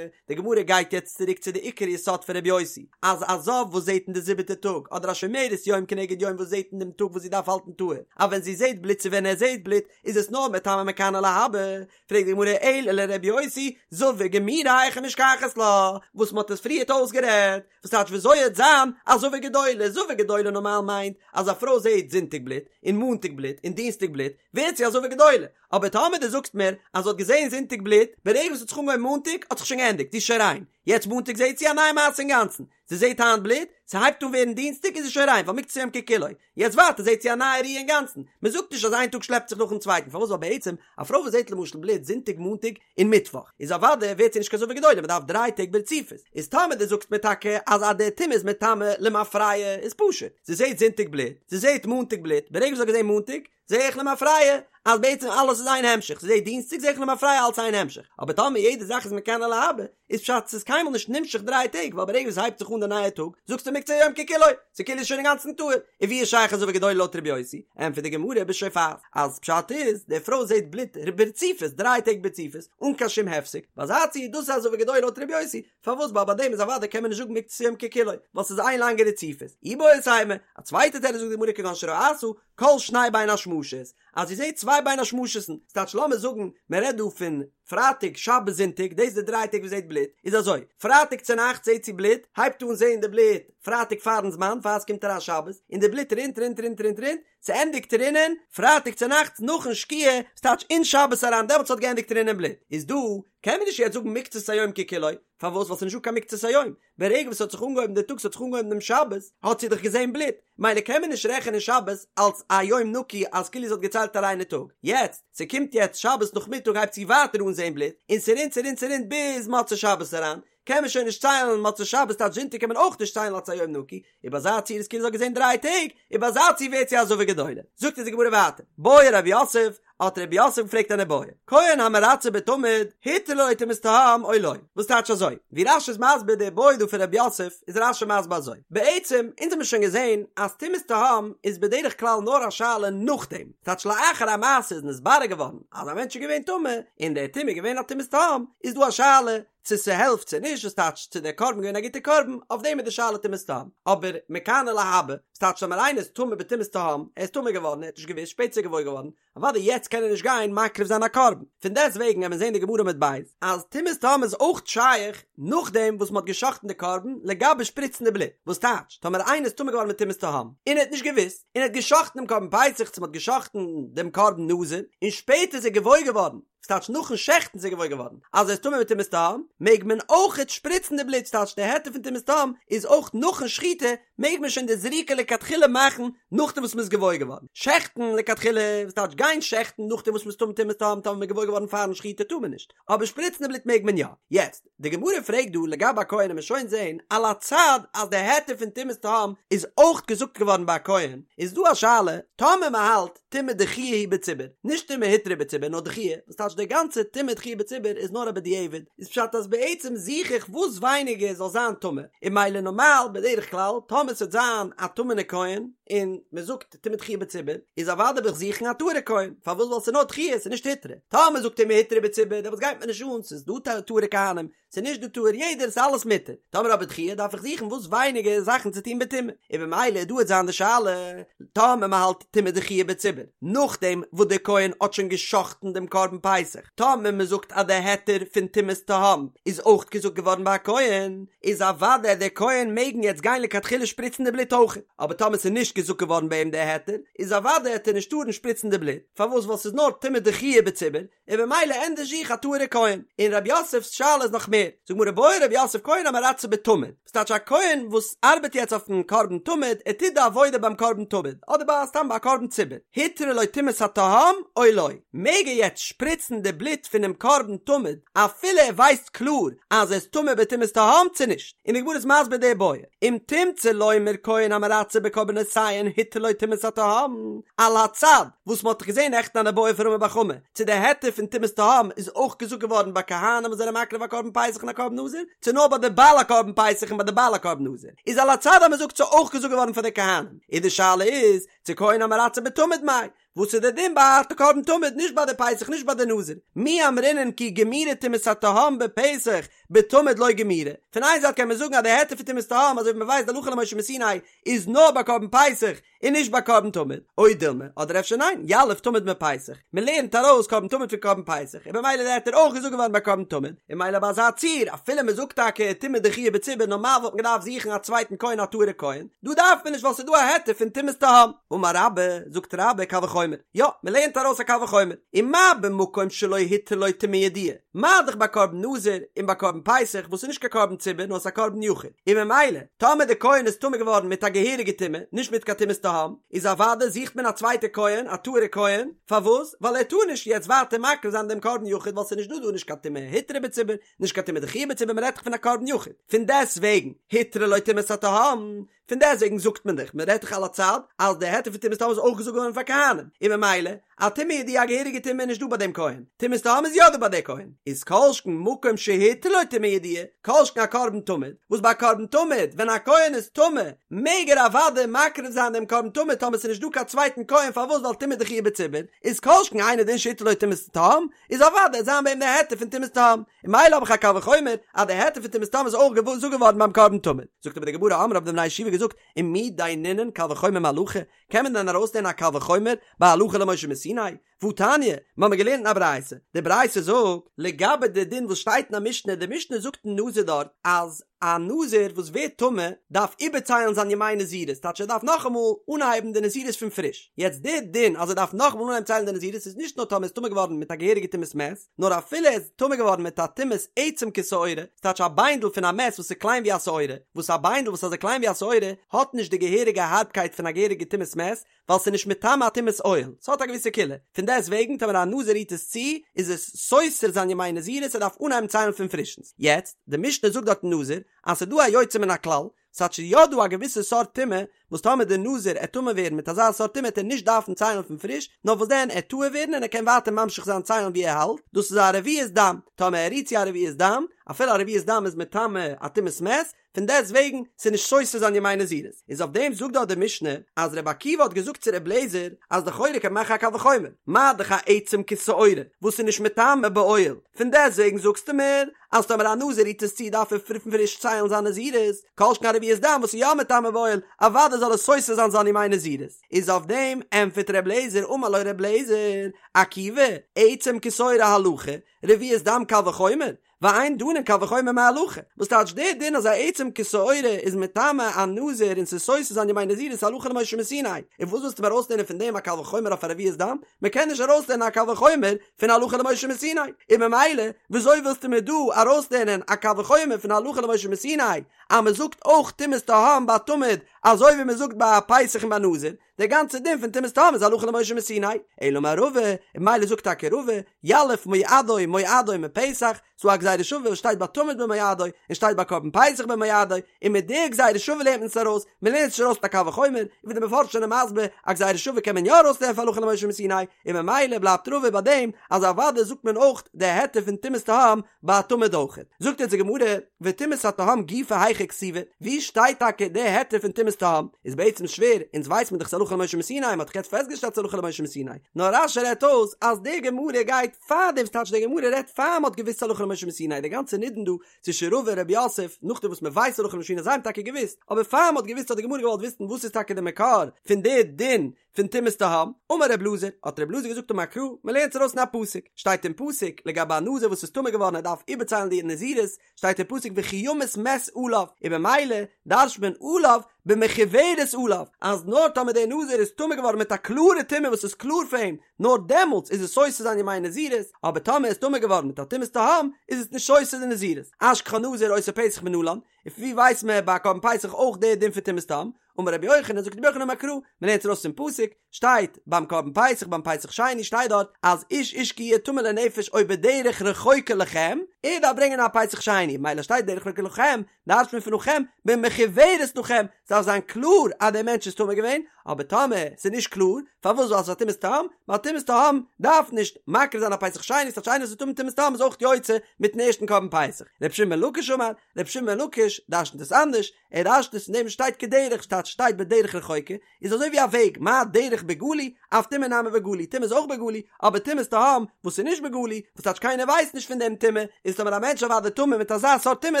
די גמרא גייט יעצט צוריק צו די עיקר יסוד פון רבי יוסי, אז א זב וואס זעט אין די זיבעטע טאג, אדער א שומרת יום כנגד יום וואס זעט אין דעם טאג וואס זי דארף האלטן טהור, אז ווען זי זעט בלוט צו ווען ער זעט בלוט, איז עס נאר מטמא מכאן ולהבא, פרעגט די גמרא אלא לרבי יוסי, זבה גמורה היכי משכחת לה, וואס מ'האט עס פריערט אויסגערעדט, וואס טייטש וויאזוי העט זיין א זבה גדולה, זבה גדולה נארמאל מיינט אז א פרוי זעהט זונטאג בלוט, און מאנטאג בלוט, און דינסטאג בלוט, ווערט זי א זבה גדולה, אבער טאמער דו זאגסט מיר אז זי האט געזעהן זונטאג בלוט, ברגע וואס ס'האט זיך אנגעהויבן מאנטאג האט זיך שוין געענדיגט, זי איז שוין ריין, יעצט מאנטאג זעהט זי א נייע מעשה אינגאנצן, זי זעהט היינט בלוט, ס'הייבט אן ווערן דינסטאג איז זי שוין ריין ווייל מקצת היום ככולו, יעצט ווייטער זעהט זי א נייע ראי' אינגאנצן, מען זאגט נישט אז איין טאג שלעפט זיך נאכן צווייטן, פארוואס ווייל בעצם א פרוי וואס זעהט למשל בלוט זונטאג מאנטאג און מיטוואך, איז אוודאי ווערט זי נישט קיין זבה גדולה מען דארף דריי טעג ברציפות, איז טאמער דו זאגסט מיר טאקע אז אז די טומאה איז מטמא למפרע איז פשוט, זי זעהט זונטאג בלוט, זי זעהט מאנטאג בלוט, ברגע וואס זי האט געזעהן מאנטאג, זעה איך למפרע אז בעצם אלעס איז איין המשך, זי זעהט דינסטאג זעה איך למפרע אלס איין המשך, אבער טאמער יעדע זאך איז מכאן ולהבא, איז פשט ס'איז קיינמאל נישט נמשך דריי טעג ווייל ברגע וואס ס'הייבט זיך אן די נייע טאג זאגסטו מקצת היום ככולו, ס'כאילו איז שוין אינגאנצן טהור, און ווי איז שייך א זבה גדולה לויט רבי יוסי? ענטפערט די גמרא בשופעת אז פשט איז די פרוי זעהט בלוט ברציפות דריי טעג ברציפות אן קיין שום הפסק, ביי אזא ציור דאס איז א זבה גדולה לויט רבי יוסי, פארוואס ווייל ביי דעם איז אוודאי קען מען נישט זאגן מקצת היום ככולו ווייל ס'איז איין לאנגע רציפות, איבעית אימא, א צווייטע תירוץ זאגט די גמרא כגון שראתה כל שני בין השמשות, אז זי זעט צוויי בין השמשות'ן, ס'טייטש לאמיר זאגן מען רעדט דא פון פרייטאג שבת זונטאג, דאס איז די דריי טעג וואס זי זעט בלוט, איז אזוי, פרייטאג צונאכטס זעט זי בלוט, הייבט אן זען די בלוט פרייטאג פארן זמן פאר עס קומט אריין שבת, און די בלוט רינט רינט רינט רינט רינט, ס'ענדיגט רינען פרייטאג צונאכטס נאכן שקיעה, ס'טייטש אין שבת אריין דעמאלטס האט געענדיגט רינען בלוט, איז דא קען מען נישט יעצט זאגן מקצת היום ככולו, פארוואס ווייל ס'איז נישטא קיין מקצת היום, ברגע וואס ס'האט זיך אנגעהויבן די טאג ס'האט זיך אנגעהויבן דעם שבת האט זי דאך געזען בלוט, מילא קען מען נישט רעכענען שבת אלס א יום נקי אז כאילו זי האט געציילט א ריינע טאג, יעצט ס'קומט יעצט שבת נאכמיטאג הייבט זי ווייטער אן זען בלוט, און ס'רינט ס'רינט ס'רינט ביז מוצאי שבת אריין, קען מען שוין נישט ציילן מוצאי שבת טייטש זונטאג קען מען אויך נישט ציילן אלס א יום נקי, און ביי אזא ציור איז כאילו זי האט געזען דריי טעג, און ביי אזא ציור ווערט זי א זבה גדולה. זאגט אונז די גמרא ווייטער, בעי רב יוסף. האט רב יוסף געפרעגט אן איבעיא, כהן המרצה בתמיד, הותרה לו טומאת תהום או לא? וואס טייטש אזוי? ווי רש"י איז מסביר די איבעיא דא פון רב יוסף, איז רש"י מסביר אזוי, בעצם, אונז האמיר שוין געזען אז טומאת תהום איז בדרך כלל נאר א שאלה נאכדעם, ס'טייטש לאחר המעשה איז נתברר געווארן אז א מענטש איז געווען טמא, און די טומאה איז געווען א טומאת תהום, איז דא א שאלה צו ס'העלפט צו נישט, וואס טייטש צו דער קרבן געווען א גוטער קרבן, אויף דעם איז די שאלה טומאת תהום, אבער מכאן ולהבא, וואס טייטש טאמער איינער איז טמא בטומאת תהום, ער איז טמא געווארן, ער האט נישט געוואוסט, שפעטער איז ער געוואויר געווארן, אוודאי יעצט קען ער נישט גיין מקריב זיין א קרבן, פון דעסט וועגן וועט מען זען די גמרא עמוד ב' אז טומאת תהום איז אויך שייך נאכדעם וואס מ'האט גע'שחט'ן די קרבן לגבי שפריצן די בלוט, וואס טייטש טאמער איינער איז טמא געווארן מיט טומאת תהום און ער האט נישט געוואוסט און ער האט גע'שחט'ן דעם קרבן פסח צו מ'האט גע'שחט'ן דעם קרבן נזיר און שפעטער איז ער געוואויר געווארן, וואס טייטש נאכן שעכטן איז ער געוואויר געווארן אז ער איז טמא מיט טומאת תהום, מעג מען אויכעט שפריצן די בלוט, ס'טייטש די היתר פון טומאת תהום איז אויך נאכן שחיטה, מעג מען שוין די זריקה לכתחילה מאכן נאכדעם וואס מ'איז געוואויר געווארן, שעכטן לכתחילה, וואס טייטש גיין שעכטן נאכדעם וואס מ'איז טמא טומאת תהום, טאמער מ'איז געוואויר געווארן פארן שחיטה טאר מען נישט, אבער שפריצן די בלוט מעג מען יא. יעצט, די גמרא פרעגט דא לגבי א כהן און מ'עט שוין זעהן על הצד אז די היתר פון טומאת תהום איז אויך געזאגט געווארן ביי א כהן, איז דא א שאלה טאמער מ'האלט טומאה דחויה היא בציבור, נישט טומאה הותרה בציבור נאר דחויה, וואס טייטש די גאנצע טומאה דחויה בציבור איז נאר א בדיעבד, איז פשט אז בעצם זוך איך וואס ווייניגער זאל זיין טמא, און ממילא נארמאל בדרך כלל טאמער ס'וועט זיין א טמא'נע כהן און מ'זאגט טומאה דחויה בציבור איז אוודאי וועל איך זוכן א טהור'ע כהן, פארוואס ווייל ס'איז נאר דחויה ס'איז נישט הותרה, טאמער מ'זאגט טומאה הותרה בציבור דעמאלטס גייט מיר נישט אן ס'איז דא טהור'ע כהנים ס'איז נישט דא טהור יעדער ס'איז אלעס מותר, טאמער אבער דחויה דארף איך זוכן וואס ווייניגער זאכן צו טון בטומאה, און במילא דא וועט זיין די שאלה טאמער מ'האלט טומאה דחויה בציבור נאכדעם וואס דער כהן האט שוין גע'שחט'ן דעם קרבן פסח, טאמער מ'זאגט אז דער היתר פון טומאת תהום איז אויך געזאגט געווארן ביי א כהן, איז אוודאי דער כהן מעגן יעצט גיין לכתחילה שפריצן די בלוט אויך, אבער טאמער ס'איז נישט געזאגט געווארן ביי אים דער היתר, איז אוודאי העט ער נישט טארן שפריצן די בלוט, פארוואס ווייל ס'איז נאר טומאה דחויה בציבור, און במילא ענדערש זוך א טהור'ע כהן. און רב יוסף'ס שאלה איז נאך מער, זאגט גמרא בעי רב יוסף כהן המרצה בתמיד, וואס טייטש א כהן וואס ארבעט יעצט אויפן קרבן תמיד, ער טוט די עבודה ביים קרבן תמיד, אדער ביי סתם ביי א קרבן ציבור, הותרה לו טומאת התהום או לא, מעג ער יעצט שפריצן די בלוט פונעם קרבן תמיד אפילו ער ווייסט קלאר אז ער איז טמא בטומאת תהום צו נישט? און די גמרא איז מסביר די בעיא, אם תמצא לומר כהן המרצה בקרבנותיהן הותרה לו טומאת התהום, על הצד וואס מ'האט דאך געזען נעכטן אן איבעיא פון רמי בר חמא, צו די היתר פון טומאת תהום איז אויך געזאגט געווארן ביי כהנים וואס זענען מקריב א קרבן פסח און א קרבן נזיר, צו נאר ביי די בעל הקרבן פסח און ביי די בעל הקרבן נזיר, איז על הצד אז מ'זאגט ס'איז אויך געזאגט געווארן פאר די כהנים, און די שאלה איז, צו כהן המרצה בתמיד מאי, וואס איז די דין ביי א קרבן תמיד נישט ביי די פסח נישט ביי די נזיר, מי אמרינן כי גמירה טומאת התהום בפסח בתמיד לא גמירה, פון איין זייט קען מען זאגן אז די היתר פון טומאת תהום אזוי ווי מען ווייסט די הלכה למשה מסיני איז נאר ביי קרבן פסח און נישט ביי קרבן תמיד, או דילמא, אדער אפשר ניין, יליף תמיד מפסח, מען לערנט ארויס קרבן תמיד פון קרבן פסח, און במילא איז די היתר אויך געזאגט געווארן ביי קרבן תמיד, און ממילא ביי אזא ציור, אפילו מען זאגט טאקע טומאה דחויה בציבור נארמאל וואלט מען געדארפט זוכן א צווייטן כהן א טהור'ע כהן, דא דארף מען נישט ווייל ס'איז דא א היתר פון טומאת תהום. אמר רבה, זאגט רבה, קל וחומר, יא, מען לערנט ארויס א קל וחומר, ומה במקום שלא הותרה לו טומאה ידועה, מה דאך ביי קרבן נזיר און ביי קרבן פסח וואס איז נישט קיין קרבן ציבור נאר עס איז א קרבן יחיד, און ממילא טאמער די כהן איז טמא געווארן מיט א געהעריגע טומאה, נישט מיט קיין טומאת תהום, איז אוודאי זוכט מען א צווייטע כהן, א טהור'ע כהן, פארוואס? ווייל ער טאר נישט יעצט ווייטער מקריב זיין דעם קרבן יחיד ווייל ס'איז נישט דא דא נישט קיין טומאה הותרה בציבור, נישט קיין טומאה דחויה בציבור, מען רעדט דאך פון א קרבן יחיד, פון דעסט וועגן הותרה לו טומאת התהום, פון דעסטוועגן זאגט מען דאך, מען רעדט דאך על הצד, אז די היתר פון טומאת תהום איז אויך געזאגט געווארן פאר כהנים, און ממילא, א טומאה ידועה א געהעריגע טומאה איז נישט דא ביי דעם כהן, טומאת תהום איז יא דא ביי דער כהן, איז כל שכן מקום שהותרה לו טומאה ידועה, כל שכן א קרבן תמיד, וואס ביי א קרבן תמיד, ווען א כהן איז טמא, מעג ער אוודאי מקריב זיין דעם קרבן תמיד טאמער ס'איז נישט דא קיין צווייטן כהן פארוואס ווייל טומאה דחויה בציבור, איז כל שכן אינו דין שהותרה לו טומאת תהום, איז אוודאי וועט זיין ביי אים די היתר פון טומאת תהום, און ממילא האב איך א קל וחומר אז די היתר פון טומאת תהום איז אויך געזאגט געווארן ביים קרבן תמיד. זאגט אבער די גמרא אמרי האבן די בני ישיבה געזאגט ומי דיינינן קל וחומר מהלכה, קען מען דען ארויסלערנען א קל וחומר ביי הלכה למשה מסיני? והתניא, מיר האבן געלערנט אין א ברייתא, די ברייתא זאגט, לגבי די דין וואס שטייט אין א משנה, די משנה זאגט אין נזיר דארט אז א נזיר וואס ווערט טמא דארף איבערציילן זיין ימי נזירות, טייטש ער דארף נאכאמאל אנהייבן די נזירות פון פריש, יעצט די דין אז ער דארף נאכאמאל אנהייבן ציילן די נזירות איז נישט נאר טאמער ער איז טמא געווארן מיט א געהעריגע טומאת מת, נאר אפילו ער איז טמא געווארן מיט א טומאת עצם כשעורה, ס'טייטש א ביינדל פון א מת וואס איז קליין ווי א שעורה, וואס א ביינדל וואס איז אזוי קליין ווי א שעורה האט נישט די געהעריגע הארבקייט פון א געהעריגע טומאת מת, ווייל ס'איז נישט מטמא א טומאת אוהל, ס'האט א געוויסע קולא, פון דעסט וועגן טאמער א נזיר רירט עס צו, איז עס סותר זיין ימי נזירות ער דארף אנהייבן ציילן פון פרישנס. יעצט, די משנה זאגט דארט אין נזיר, אז ס'איז דא א יוצא מן הכלל, ס'טייטש ס'איז יא דא א געוויסע סארט טומאה וואס טאמער דער נזיר עט טמא ווערן מיט אזא סארט טומאה עט ער נישט דארפן ציילן פון פריש, נאר וואס דען עט טהור ווערן און ער קען ווייטער ממשיך זיין ציילן ווי ער האלט, דאס איז א רביעית דם, טאמער ער רירט צו א רביעית דם, אפילו א רביעית דם איז מטמא א טומאת מת, פון דעסט וועגן ס'איז נישט סותר זיין ימי נזירות. איז אויף דעם זאגט דארט די משנה אז רבי עקיבא האט געזאגט צו רבי אליעזר אז לכאורה קען מען מאכן א קל וחומר, מה דאך א עצם כשעורה וואס איז נישט מטמא באוהל, פון דעסט וועגן זאגסטו מיר אז טאמער א נזיר רירט עס צו דארף ער פון פריש ציילן זיין נזירות, כל שכן א רביעית דם וואס איז יא מטמא באוהל, אוודאי זאל עס סותר זיין זיין ימי נזירות. איז אויף דעם ענטפערט רבי אליעזר אמר לו רבי אליעזר, עקיבא, עצם כשעורה הלכה, רביעית דם קל וחומר, ואין דנין קל וחומר מהלכה, וואס טייטש דער דין אז א עצם כשעורה איז מטמא א נזיר און ס'איז סותר זיין ימי נזירות הלכה למשה מסיני, און וואס ווילסטו מיר ארויסלערנען פון דעם א קל וחומר אויף א רביעית דם? מ'קען נישט ארויסלערנען א קל וחומר פון הלכה למשה מסיני, און ממילא וויאזוי ווילסטו מיר דא ארויסלערנען א קל וחומר פון הלכה למשה מסיני אז מ'זאגט אויך טומאת תהום ביי תמיד אזוי ווי מ'זאגט ביי א פסח און ביי נזיר? דער גאנצער דין פון טומאת תהום איז הלכה למשה מסיני, אלא אמר רבא, און ממילא זאגט טאקע רבא, יליף מועדו מועדו מפסח, ס'דא א גזירה שווה וואס שטייט ביי תמיד במועדו, און שטייט ביי קרבן פסח במועדו, און מיט די גזירה שווה לערנט מען עס ארויס, מען לערנט עס נישט ארויס מיט א קל וחומר, און ווי די מפרשים זענען מסביר, א גזירה שווה קען מען יא ארויסלערנען פון הלכה למשה מסיני, און ממילא בלייבט רבא ביי דעם אז אוודאי זאגט מען אויך די היתר פון טומאת תהום ביי תמיד אויכעט. זאגט אונז די גמרא, וטומאת התהום גופא היכא כתיבא, ווי שטייט טאקע די היתר פון טומאת תהום? איז בעצם שווער, אונז ווייס מען דאך ס'הלכה למשה מסיני, מ'האט דאך יעצט פעסטגעשטעלט ס'הלכה למשה מסיני, נאר רש"י רעדט אויס אז די גמרא גייט פאר דעם, ס'טייטש די גמרא רעדט פאר מ'האט געוואוסט ס'הלכה למשה מסיני, די גאנצע נידון דא צווישן רבא און רב יוסף, נאכדעם וואס מ'ווייסט הלכה למשה מסיני, זיי האבן טאקע געוואוסט, אבער פאר מ'האט געוואוסט האט די גמרא געוואלט וויסן וואס איז טאקע די מקור פון די דין פון טומאת תהום, אמר רב אלעזר, האט רב אלעזר געזאגט אמר קרא, מען לערנט עס ארויס אין א פסוק, שטייט אין פסוק לגבי א נזיר וואס איז טמא געווארן ער דארף איבערציילן די נזירות, שטייט אין פסוק וכי ימות מת עליו, און במילא דרש'ט מען עליו במחוורת עליו, אז נאר טאמער דער נזיר איז טמא געווארן מיט א קלארע טומאה וואס איז קלאר פאר אים, נאר דעמאלטס איז עס סותר זיין ימי נזירות, אבער טאמער ער איז טמא געווארן מיט א טומאת תהום, איז עס נישט סותר די נזירות. אשכחה נזיר עושה פסח מנלן, און פון ווי ווייסט מען ביי א קרבן פסח אויך דער דין פון טומאת תהום? אמר רבי יוחנן, זאגט רבי יוחנן אמר קרא, מען לערנט ארויס פון פסוק, שטייט ביים קרבן פסח, ביים פסח שני שטייט דארט אז איש איש כי יהיה טמא לנפש או בדרך רחוקה לכם, ער דארף ברענגען א פסח שני, מילא שטייט דרך רחוקה לכם, דרש'ט מען פון לכם, במחוורת לכם, ס'דארף זיין קלאר אז דער מענטש איז טמא געווען, אבער טאמער ס'איז נישט קלאר, פארוואס ווייל ס'איז א טומאת תהום, ווייל טומאת תהום דארף נישט מקריב זיין א פסח שני, ס'טייטש איינער וואס איז טמא טומאת תהום איז אויך יוצא מיטן ערשטן קרבן פסח. רבי שמעון בן לקיש אמר, רבי שמעון בן לקיש דרש'נט עס אנדערש, ער דרש'נט עס אין דעם שטייט כדרך שטייט שטייט בדרך רחוקה, איז אזוי ווי א וועג, מה דרך בגלוי, אף טומאה נמי בגלוי, טומאה איז אויך בגלוי, אבער טומאת תהום, וואס איז נישט בגלוי, וואס טייטש קיינער ווייסט נישט פון דעם טומאה, איז טאמער א מענטש אוודאי טמא מיט אזא סארט טומאה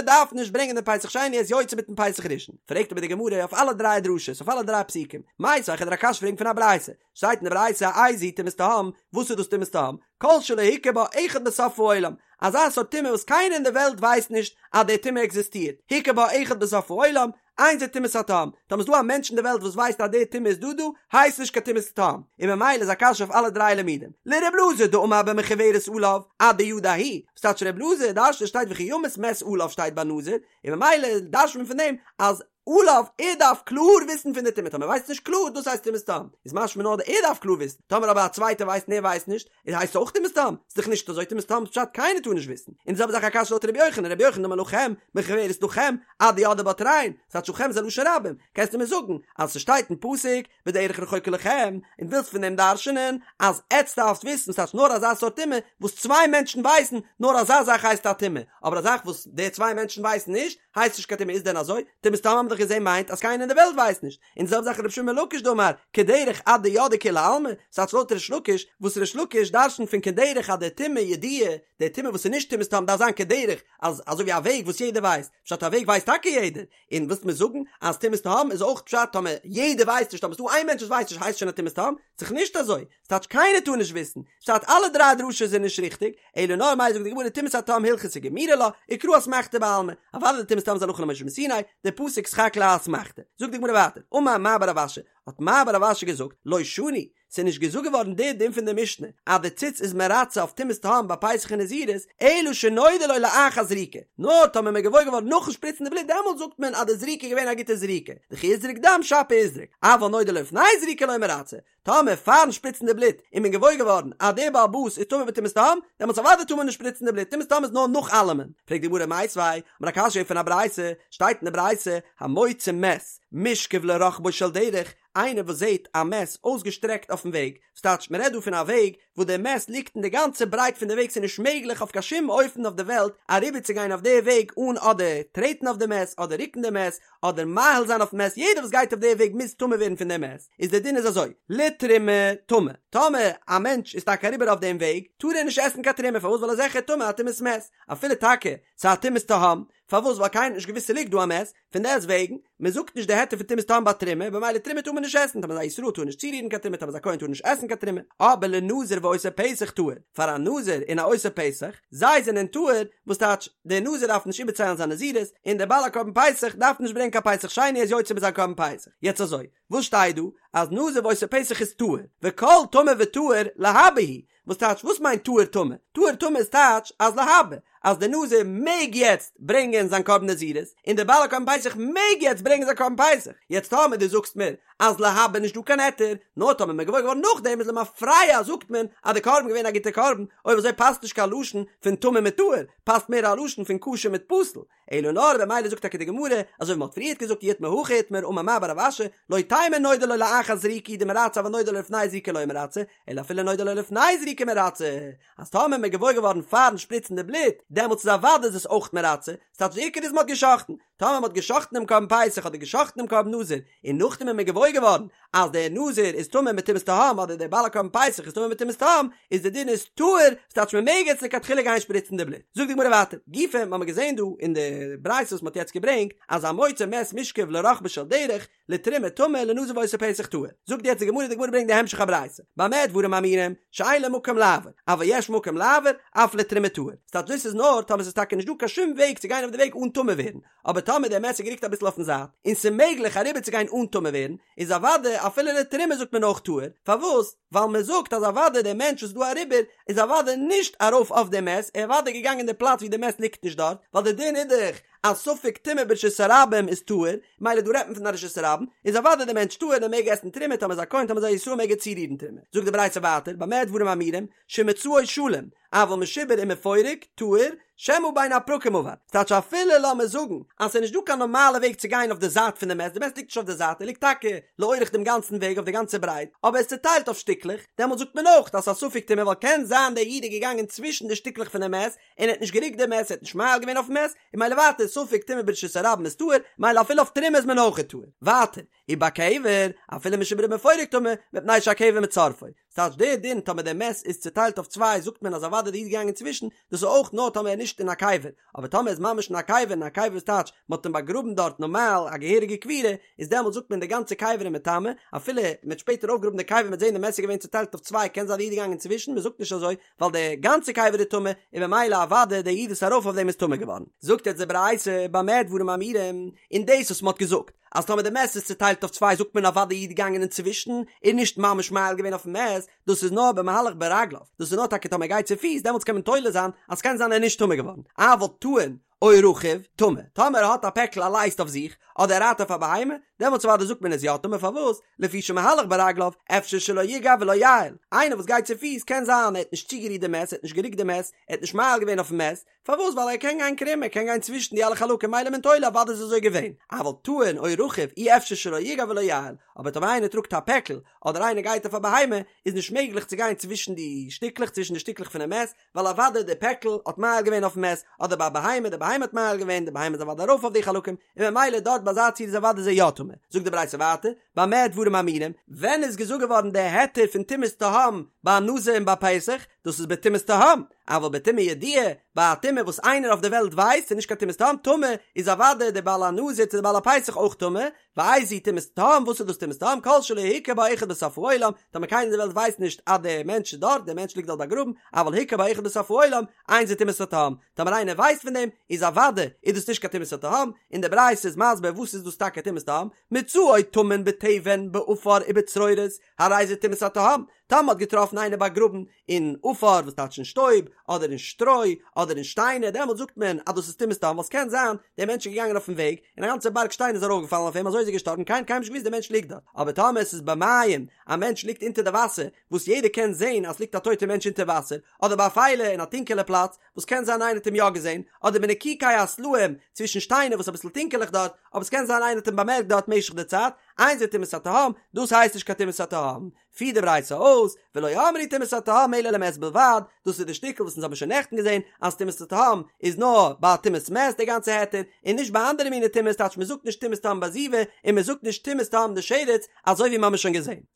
דארף נישט ברענגען דעם פסח שני ער איז יוצא מיטן פסח ראשון. פרעגט אבער די גמרא אויף אלע דריי דרשות, אויף אלע דריי פסוקים, מיתיבי כ'וועל דיר א קשיא פרעגן פון א ברייתא, שטייט אין די ברייתא איזוהי טומאת תהום, וואס איז דאס טומאת תהום? כל שלא הכיר בה אחד בסוף העולם, אזא סארט טומאה וואס קיינער אין די וועלט ווייסט נישט אז די טומאה עקזיסטירט, הכיר בה אחד בסוף העולם, אין זו טומאת התהום, טאמער איז דא א מענטש אין די וועלט וואס ווייסט אז די טומאה איז דא דא, הייסט נישט קיין טומאת תהום, און ממילא איז א קשיא אויף אלע דריי לימודים. לר' אלעזר דאמר במחוורת עליו, אדידע הוא, וואס טייטש ר' אלעזר דרש'נט שטייט וכי ימות מת עליו שטייט ביי נזיר, און ממילא דרש'נט מען פון דעם אז עליו, ער דארף קלאר וויסן פון די טומאה, טאמער ווייסט נישט קלאר, דאס הייסט טומאת תהום, איז משמע נאר ער דארף קלאר וויסן, טאמער אבער א צווייטער ווייסט און ער ווייסט נישט, איז הייסט אויך טומאת תהום, ס'איז דאך נישט אזוי טומאת תהום איז פשט קיינער טאר נישט וויסן, און די זעלבע זאך א קשיא לויט רבי יוחנן, רבי יוחנן דאמר לכם, במחוורת לכם, אדידעי בה תרין, ס'טייטש לכם איז א לשון רבים, קענסטו מיר זאגן אז ס'שטייט אין פסוק בדרך רחוקה לכם, און ווילסט פון דעם דרש'נען אז עטץ דארפסט וויסן ס'טייטש נאר אזא סארט טומאה וואס צוויי מענטשן ווייסן, נאר אזא זאך הייסט א טומאה, אבער א זאך וואס די צוויי מענטשן ווייסן נישט, הייסט נישט קיין טומאה איז דען אזוי? טומאת תהום האבן מיר דאך געזען מיינט אז קיינער אין די וועלט ווייסט נישט, און די זעלבע זאך רבי שמעון בן לקיש דאמר כדרך עד דידעי כולי עלמא, ס'טייטש לויט ריש לקיש, וואס ריש לקיש דרש'נט פון כדרך אז די טומאה ידועה, די טומאה וואס איז נישט טומאת תהום דארף זיין כדרך, אז אזוי ווי א וועג וואס יעדער ווייסט, פשט א וועג ווייסט טאקע יעדער, און ווילסט מיר זאגן אז טומאת תהום איז אויך פשט טאמער יעדער ווייסט נישט טאמער ס'דא איין מענטש וואס ווייסט נישט הייסט שוין א טומאת תהום? ס'דאך נישט אזוי, ס'טייטש קיינער טאר נישט וויסן, ס'טייטש אלע דריי דרשות זענען נישט ריכטיג, אלא נאר מאי זאגט די גמרא טומאת התהום הלכתא גמירי לה, וקרא אסמכתא בעלמא, אוודאי די טומאת תהום איז הלכה למשה מסיני, די פסוק סך הכל א אסמכתא. זאגט די גמרא ווייטער, אמר מר בר רב אשי, האט מר בר רב אשי געזאגט, לא שנו, ס'איז נישט געזאגט געווארן די דין פון די משנה, אז די ציץ איז מרצה אויף טומאת תהום ביי פסח און נזירות, אלא שנודע לו לאחר זריקה, נאר טאמער מ'איז געוואויר געווארן נאכן שפריצן די בלוט דעמאלט זאגט מען אז די זריקה איז געווען א גוטע זריקה, דכי איזרק דם שפיר איזרק, אבל נודע לו לפני זריקה לא מרצה, טאמער פארן שפריצן די בלוט איז מען געוואויר געווארן אז דער בעל הבית איז טמא בטומאת תהום, דעמאלטס אוודאי טאר מען נישט שפריצן די בלוט, טומאת תהום איז נאר נאך אלעמען. פרעגט די גמרא מיתיבי, האט מען א קשיא פון א ברייתא, שטייט אין די ברייתא, המוציא מת, מושכב לרחבו של דרך, איינער וואס זעט א מת אויסגעשטרעקט אויפן וועג, ס'טייטש מ'רעדט דא פון א וועג וואס דער מת ליגט אין די גאנצע ברייט פון די וועג ס'איז נישט מעגליך אויף קיין שום אופן אויף די וועלט אריבערצוגיין אויף די וועג אן אדער טרעטן אויף די מת אדער רוקן די מת אדער מאהיל זיין אויפן מת יעדער וואס גייט אויף די וועג מוז טמא ווערן פון די מת איז די דין איז אזוי לתרומה טמא טאמער א מענטש איז טאקע אריבער אויף דעם וועג טאר ער נישט עסן קיין תרומה פארוואס ווייל ער איז זיכער טמא א טומאת מת אפילו טאקע ס'איז א טומאת תהום פארוואס ווייל קיינער האט נישט געוואוסט ס'ליגט דא א מת פון דעסט וועגן, מען זאגט נישט די היתר פון טומאת תהום ביי תרומה, במילא תרומה טאר מען נישט עסן, טאמער איז א ישראל טאר נישט צורירן קיין תרומה, טאמער איז א כהן טאר נישט עסן קיין תרומה, אבער לנזיר ועושה פסח טהור, פאר א נזיר און א עושה פסח, זיי זענען טהור, וואס טייטש, דער נזיר דארף נישט איבערציילן זיין נזירות, און דער בעל הקרבן פסח דארף נישט ברענגען קיין פסח שני ער איז יוצא מיט זיין קרבן פסח. יעצט אזוי, וואס שטייט דא? אז נזיר ועושה פסח איז טהור, וכל טמא וטהור להבא הוא, וואס טייטש וואס מיינט טהור טמא? טהור טמא איז טייטש אז להבא אז דער נזיר מעג יעצט ברענגען זיין קרבן נזירות און דער בעל הקרבן פסח מעג יעצט ברענגען זיין קרבן פסח, יעצט טאמער דו זאגסט מיר אז להבא נישט דא קיין היתר, נאר טאמער מען געוואויר געווארן נאכדעם איז למפרע זאגט מען אז די קרבן געווען א גוטע קרבן, אויב אזוי פאסט נישט קיין לשון פון טמא מיט טהור, פאסט מער א לשון פון כשר מיט פסול, אלא נאר במילא זאגט טאקע די גמרא, אזוי ווי מ'האט פריערט געזאגט אי איתמר הכי איתמר אמר מר בר רב אשי, לא תימא נודע לו לאחר זריקה הוא דמרצה אבל נודע לו לפני זריקה לא מרצה, אלא אפילו נודע לו לפני זריקה מרצה, אז טאמער מ'איז געוואויר געווארן פארן שפריצן די בלוט, דעמאלטס איז אוודאי איז עס אויך מרצה, ס'טייטש די עיקר איז מ'האט גע'שחט'ן, טאמער מ'האט גע'שחט'ן דעם קרבן פסח אדער גע'שחט'ן דעם קרבן נזיר, און נאכדעם איז מען געוואויר געווארן אז דער נזיר איז טמא מיט טומאת תהום אדער דער בעל הקרבן פסח איז טמא מיט טומאת תהום, איז די דין איז טהור, ס'טייטש מען מעג יעצט לכתחילה גיין שפריצן די בלוט. זאגט די גמרא ווייטער, גופא, מ'האמיר געזען דא אין די ברייתא וואס מ'האט יעצט געברענגט, אז המוצא מת מושכב לרחבו של דרך, לתרומה טמא לנזיר ועושה פסח טהור. זאגט יעצט די גמרא, די גמרא ברענגט די המשך הברייתא, במה דברים אמורים, שאין לו מקום לעבור, אבל יש מקום לעבור, אף לתרומה טהור. ס'טייטש דאס איז נאר טאמער ס'איז טאקע נישט דא קיין שום וועג צו גיין אויף די וועג אן טמא ווערן, אבער טאמער דער מת איז גערוקט אביסל אויפן זייט, און ס'איז מעגליך אריבערצוגיין אן טמא ווערן, איז אוודאי אפילו לתרומה זאגט מען אויך טהור, פארוואס? ווייל מען זאגט אז אוודאי דער מענטש וואס איז דא אריבער איז אוודאי נישט ארויף אויף די מת, ער איז אוודאי געגאנגען אין די פלאץ ווי די מת ליגט נישט דארט, ווייל די דין איז דאך אז ספק טומאה ברשות הרבים איז טהור, מילא דא רעדט מען פון א רשות הרבים, איז אוודאי דער מענטש טהור און ער מעג עסן תרומה טאמער איז א כהן טאמער איז א ישראל מעג ער צורירן תרומה. זאגט די ברייתא ווייטער במה דברים אמורים שמצאו שלם, אבל משובר ומפורק, טהור, שמא בין הפרקים עבר. ס'טייטש אפילו לאמיר זאגן אז ס'איז נישט דא קיין נארמאלע וועג צו גיין אויף די זייט פון די מת, די מת ליגט נישט אויף די זייט, ער ליגט טאקע לאורך דעם גאנצן וועג אויף די גאנצע ברייט, אבער ער איז צוטיילט אויף שטיקלעך, דעמאלט זאגט מען אויך אז ס'איז א ספק טומאה ווייל קען זיין דער איד איז געגאנגען צווישן די שטיקלעך פון די מת און ער האט נישט גערוקט די מת, ער האט נישט מאהיל געווען אויפן מת, און מילא ווייטער ספק טומאה ברשות הרבים איז טהור, מילא אפילו אויף תרומה איז מען אויך טהור. ווייטער, ובקבר, אפילו משובר ומפורק טמא, מפני שהקבר מצרפו. ס'טייטש דער דין טאמער דער מת איז צוטיילט אויף צוויי זאגט מען אז אוודאי דער איד געגאנגען צווישן, דאס איז אויך נאר טאמער ער איז נישט אין א קבר, אבער טאמער ער איז ממש אין א קבר און א קבר איז טייטש מ'האט אים באגראבן דארט נארמאל א געהעריגע קבירה, איז דעמאלט זאגט מען די גאנצע קבר איז מטמא, אפילו מ'האט שפעטער אויפגעגראבן די קבר מ'האט זען די מת איז געווען צוטיילט אויף צוויי קען זיין די איד איז געגאנגען צווישן, מ'זאגט נישט אזוי ווייל די גאנצע קבר איז טמא, און ממילא אוודאי דער איד וואס איז ארויף אויף דעם איז טמא געווארן. זאגט יעצט די ברייתא במה דברים אמורים, און דאס וואס מ'האט געזאגט אז טאמער די מת איז צוטיילט אויף צוויי זאגט מען אוודאי די איד געגאנגען אינצווישן און נישט ממש מאהיל געווען אויפן מת, דאס איז נאר במהלך ברגליו, דאס איז נאר טאקע טאמער ער גייט צופיס דעמאלטס קען מען תולה זיין אז ס'קען זיין ער איז נישט טמא געווארן, אבל טעון או רכוב טמא, טאמער ער האט א פעקל א לייסט אויף זיך, אדער ער רייט אויף א בהמה, דעמאלטס אוודאי זאגט מען איז יא טמא פארוואס? לפי שמהלך ברגליו, אפשר שלא יגע ולא יאהיל, איינער וואס גייט צופיס קען זיין ער האט נישט צוגערירט די מת, ער האט נישט גערוקט די מת, ער האט נישט מאהיל געווען אויפן מת, פארוואס ווייל ער קען גיין קרום ער קען גיין צווישן די אלע חלקים מילא מען תולה אוודאי איז אזוי געווען, אבל טעון או רכוב אי אפשר שלא יגע ולא יאהיל, אבער טאמער איינער טראגט א פעקל אדער איינער גייט אויף א בהמה איז נישט מעגליך צו גיין צווישן די שטיקלעך צווישן די שטיקלעך פונעם מת ווייל אוודאי די פעקל האט מאהיל געווען אויפן מת אדער ביי א בהמה די בהמה האט מאהיל געווען די בהמה איז אוודאי ארויף אויף די חלקים און ממילא דארט ביי אזא ציור איז אוודאי זי יא טמא זאגט די ברייתא ווייטער במה דברים אמורים ווען איז געזאגט געווארן די היתר פון טומאת תהום ביי א נזיר און ביי פסח דאס איז בטומאת תהום אבל בטומאה ידועה, ביי א טומאה וואס איינער אויף די וועלט ווייסט ס'איז נישט קיין טומאת תהום, טמא, איז אוודאי דער בעל הנזיר צו דער בעל הפסח אויך טמא, ואיזו טומאת תהום, וואס איז דאס טומאת תהום, כל שלא הכיר בה אחד בסוף העולם, טאמער קיינער אין די וועלט ווייסט נישט אז דער מענטש איז דארט, דער מענטש ליגט דארט באגראבן, אבל הכיר בה אחד בסוף העולם, אין זו טומאת התהום, טאמער איינער ווייסט פון דעם, איז אוודאי איז דאס נישט קיין טומאת התהום, און די ברייתא איז מסביר וואס איז דאס טאקע טומאת תהום, מצאו טמון בתבן בעפר ובצרורות, הרי זה טומאת התהום, טאמער מ'האט געטראפן איינער באגראבן אין עפר וואס טייטש אין שטויב, אדער אין שטרוי, אדער אין שטיינער, דעמאלט זאגט מען אז דאס איז טומאת תהום, ווייל ס'קען זיין דער מענטש איז געגאנגען אויפן וועג, און א גאנצע בארג שטיין איז ארויפגעפאלן אויף אים, אזוי איז ער געשטארבן, קיינער האט קיינמאל נישט געוואוסט דער מענטש ליגט דארט, אבער טאמער עס איז במים, א מענטש ליגט אונטער די וואסער, וואס יעדער קען זען אז ס'ליגט א טויטער מענטש אונטער וואסער, אדער באפילה אין א טונקעלע פלאץ, וואס קען זיין איינער האט אים יא געזען, אדער בנקיקי הסלעים, צווישן שטיינער וואס איז אביסל טונקעלעך דארט, אבער ס'קען זיין איינער האט אים באמערקט דארט משך די צייט, אין זה טומאת התהום, דאס הייסט נישט קיין טומאת התהום. פירט די ברייתא אויס, ולא אמרו טומאת התהום אלא למת בלבד, דאס איז די שטיקל וואס אונז האבן שוין נעכטן געזען, אז טומאת התהום איז נאר ביי טומאת מת די גאנצע היתר, און נישט ביי אנדערע מיני טומאות, טייטש מ'זאגט נישט טומאת תהום ביי זיבה, און מ'זאגט נישט טומאת תהום דשרץ, אזוי ווי מ'האמיר שוין געזען.